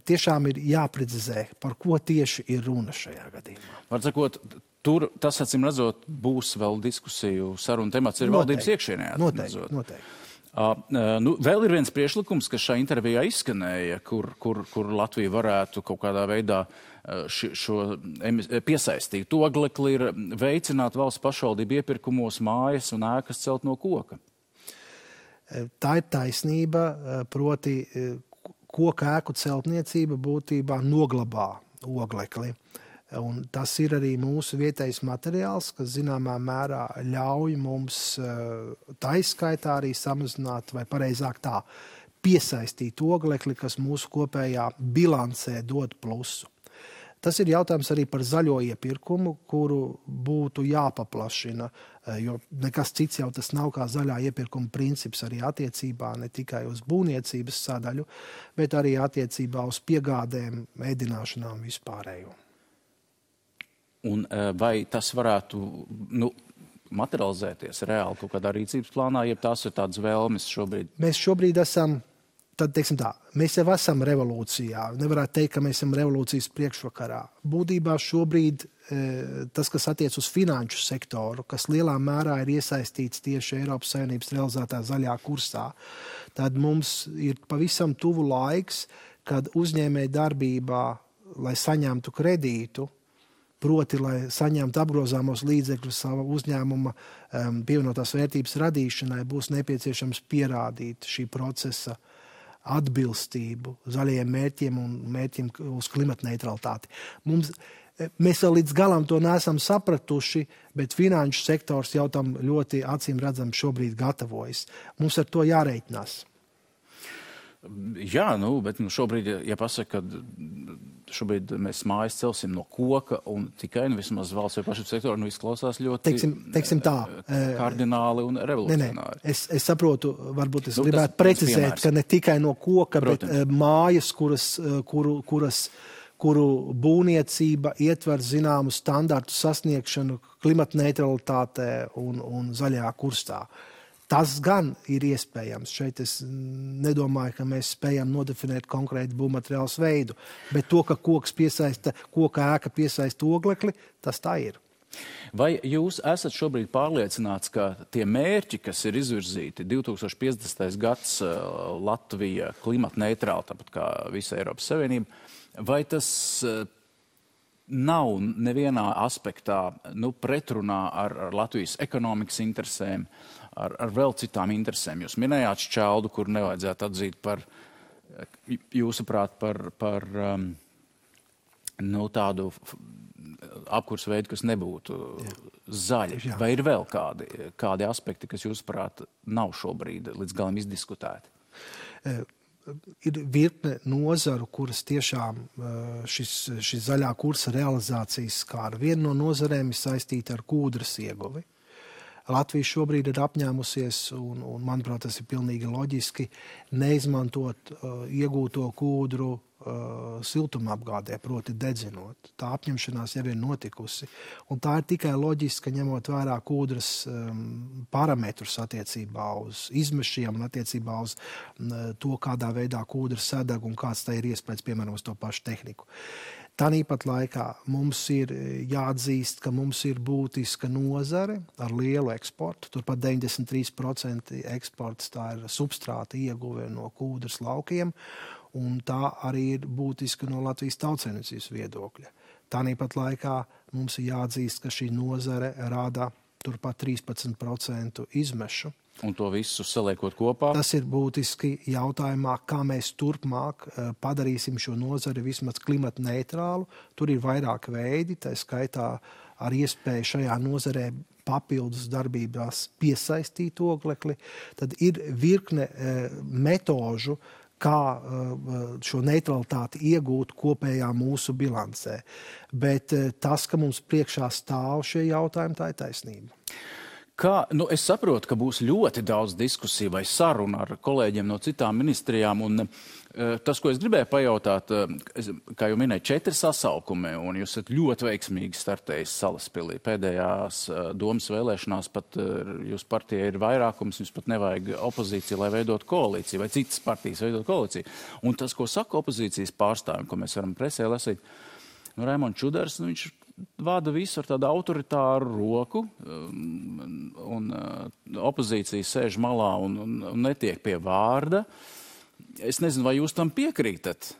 tiešām ir jāprecizē, par ko tieši ir runa šajā gadījumā. Var sakot, tur tas, acīm redzot, būs vēl diskusiju sarunu temats ir valdības iekšienē. Noteikti. Vēl ir viens priekšlikums, kas šajā intervijā izskanēja, kur Latvija varētu kaut kādā veidā šo piesaistītu oglekli ir veicināt valsts pašvaldību iepirkumos mājas un ēkas celt no koka. Tā ir taisnība, proti koka ēku celtniecība būtībā noglabā oglekli. Un tas ir arī mūsu vietējais materiāls, kas zināmā mērā ļauj mums taiskaitā arī samazināt, vai pareizāk tā, piesaistīt oglekli, kas mūsu kopējā bilancē dod plusu. Tas ir jautājums arī par zaļo iepirkumu, kuru būtu jāpaplašina, jo nekas cits jau tas nav kā zaļā iepirkuma princips arī attiecībā ne tikai uz būvniecības sadaļu, bet arī attiecībā uz piegādēm, ēdināšanām vispārējo. Un vai tas varētu materializēties reāli kaut kādā rīcības plānā, ja tās ir tādas vēlmes šobrīd? Mēs šobrīd esam, mēs jau esam revolūcijā. Nevarētu teikt, ka mēs esam revolūcijas priekšvakarā. Būtībā šobrīd tas, kas attiec uz finanšu sektoru, kas lielā mērā ir iesaistīts tieši Eiropas Savienības realizētā zaļā kursā, tad mums ir pavisam tuvu laiks, kad uzņēmēja darbībā, lai saņemtu kredītu, proti, lai saņemtu apgrozāmos līdzekļus sava uzņēmuma pievienotās vērtības radīšanai, būs nepieciešams pierādīt šī procesa atbilstību zaļajiem mērķiem un mērķiem uz klimatneitralitāti. Mēs vēl līdz galam to neesam sapratuši, bet finanšu sektors jau tam ļoti acīm redzam šobrīd gatavojas. Mums ar to jārēķinās. Jā, bet šobrīd, ja pasaka, ka šobrīd mēs mājas celsim no koka un tikai vismaz valsts vai pašvaldības sektoru, izklausās ļoti teiksim tā, kardināli un revolucionāri. Es saprotu, varbūt es gribētu precizēt, ka ne tikai no koka, protams, bet mājas, kuru būvniecība ietver zināmu standartu sasniegšanu klimatneitralitātē un zaļajā kursā. Tas gan ir iespējams. Šeit es nedomāju, ka mēs spējam nodefinēt konkrētu būvmateriāls veidu, bet to, ka koka ēka piesaista oglekli, tas tā ir. Vai jūs esat šobrīd pārliecināts, ka tie mērķi, kas ir izvirzīti 2050. gads Latvija klimatneitrāla, tāpat kā visa Eiropas Savienība, vai tas nav nevienā aspektā pretrunā ar Latvijas ekonomikas interesēm, ar vēl citām interesēm? Jūs minējāt šķeldu, kur nevajadzētu atzīt par, jūsuprāt, par tādu apkurs veidu, kas nebūtu zaļi. Jā. Vai ir vēl kādi aspekti, kas jūsuprāt nav šobrīd līdz galam izdiskutēti? Ir virkne nozaru, kuras tiešām šis zaļā kursa realizācijas skāra. Viena no nozarēm ir saistīta ar kūdras ieguvi. Latvija šobrīd ir apņēmusies, un manuprāt, tas ir pilnīgi loģiski, neizmantot iegūto kūdru siltumapgādē, proti dedzinot. Tā apņemšanās jau ir notikusi. Un tā ir tikai loģiska, ņemot vērā kūdras parametrus attiecībā uz izmešiem un attiecībā uz to, kādā veidā kūdra sadeg un kāds tā ir iespējas, piemēram, uz to pašu tehniku. Tāpat laikā mums ir jāatzīst, ka mums ir būtiska nozare ar lielu eksportu. Turpat 93% eksports tā ir substrāta ieguve no kūdras laukiem, un tā arī ir būtiska no Latvijas tautsaimniecības viedokļa. Tāpat laikā mums ir jāatzīst, ka šī nozare rada turpat 13% izmešu. Un to visu saliekot kopā? Tas ir būtiski jautājumā, kā mēs turpmāk padarīsim šo nozari vismaz klimatneitrālu. Tur ir vairāk veidi, tā skaitā ar iespēju šajā nozarē papildus darbībās piesaistīt oglekli. Tad ir virkne metožu, kā šo neutralitāti iegūt kopējā mūsu bilancē. Bet tas, ka mums priekšā stāv šie jautājumi, tā ir taisnība. Es saprotu, ka būs ļoti daudz diskusiju vai sarunu ar kolēģiem no citām ministrijām, un tas, ko es gribēju pajautāt, kā jau minēju, 4 sasaukumi, un jūs esat ļoti veiksmīgi startējis Salaspilī. Pēdējās domas vēlēšanās pat jūs partija ir vairākums, jums pat nevajag opozīciju, lai veidot koalīciju, vai citas partijas veidot koalīciju. Un tas, ko saka opozīcijas pārstāvjiem, ko mēs varam presē lasīt, Raimonds Čudars, viņš vada visu ar tādu autoritāru roku, un opozīcija sēž malā un netiek pie vārda. Es nezinu, vai jūs tam piekrītat,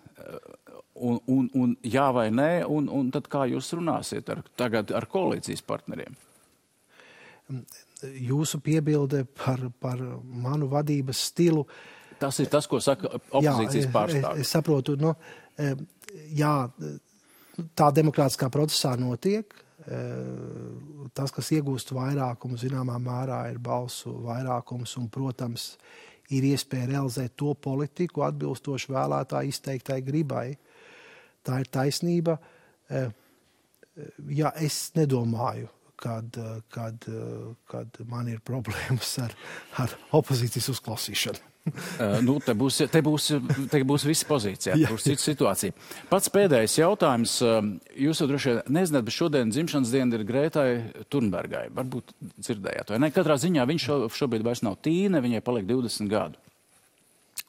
un jā vai nē, un tad kā jūs runāsiet tagad ar koalīcijas partneriem? Jūsu piebilde par manu vadības stilu. Tas ir tas, ko saka opozīcijas pārstāvji. Es saprotu, jā, tā demokrātiskā procesā notiek. Tas, kas iegūst vairākumu, zināmā mērā ir balsu vairākums un, protams, ir iespēja realizēt to politiku atbilstoši vēlētāju izteiktai gribai. Tā ir taisnība. Jā, es nedomāju, kad man ir problēmas ar opozīcijas uzklausīšanu. Te būs visi pozīcijā, būs cita situācija. Pats pēdējais jautājums. Jūs jau droši vien nezināt, bet šodien dzimšanas diena ir Grētai Thunbergai. Varbūt dzirdējāt vai ne? Katrā ziņā viņš šobrīd vairs nav tīne, viņai paliek 20 gadu.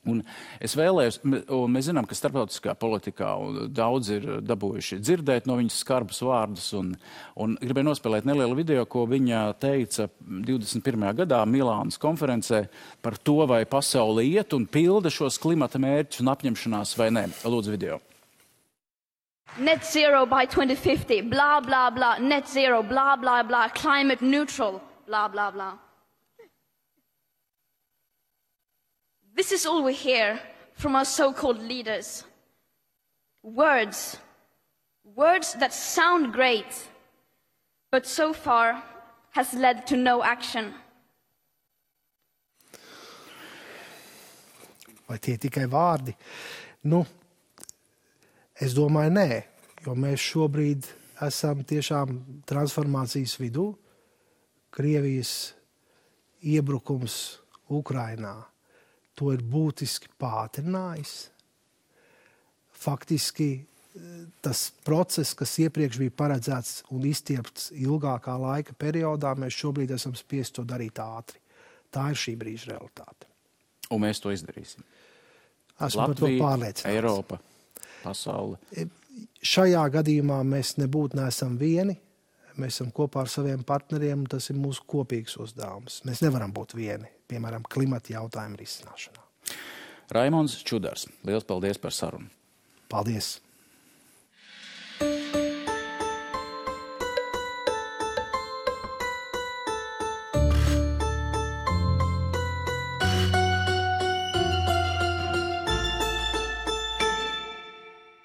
Un es vēlējos, un mēs zinām, ka starptautiskā politikā daudz ir dabūjuši dzirdēt no viņas skarbus vārdus, un gribēju nospēlēt nelielu video, ko viņa teica 21. gadā Milānas konferencē par to, vai pasaule iet un pilda šos klimata mērķus un apņemšanās vai nē. Lūdzu video. Net zero by 2050, blah, blah, blah, net zero, blah, blah, blah, climate neutral, blah, blah, blah. This is all we hear from our so-called leaders. Words that sound great, but so far has led to no action. Vai tie tikai vārdi? Es domāju, nē, jo mēs šobrīd esam tiešām transformācijas vidū. Krievijas iebrukums Ukrainā to ir būtiski pātrinājis. Faktiski tas process, kas iepriekš bija paredzēts un izstiepts ilgākā laika periodā, mēs šobrīd esam spiesti to darīt ātri. Tā ir šī brīža realitāte. Un mēs to izdarīsim. Esmu par to pārliecināts. Eiropa, pasaule. Šajā gadījumā mēs nebūtu neesam vieni. Mēs esam kopā ar saviem partneriem, un tas ir mūsu kopīgs uzdevums. Mēs nevaram būt vieni, piemēram, klimata jautājumu risināšanā. Raimonds Čudars, liels paldies par sarunu. Paldies!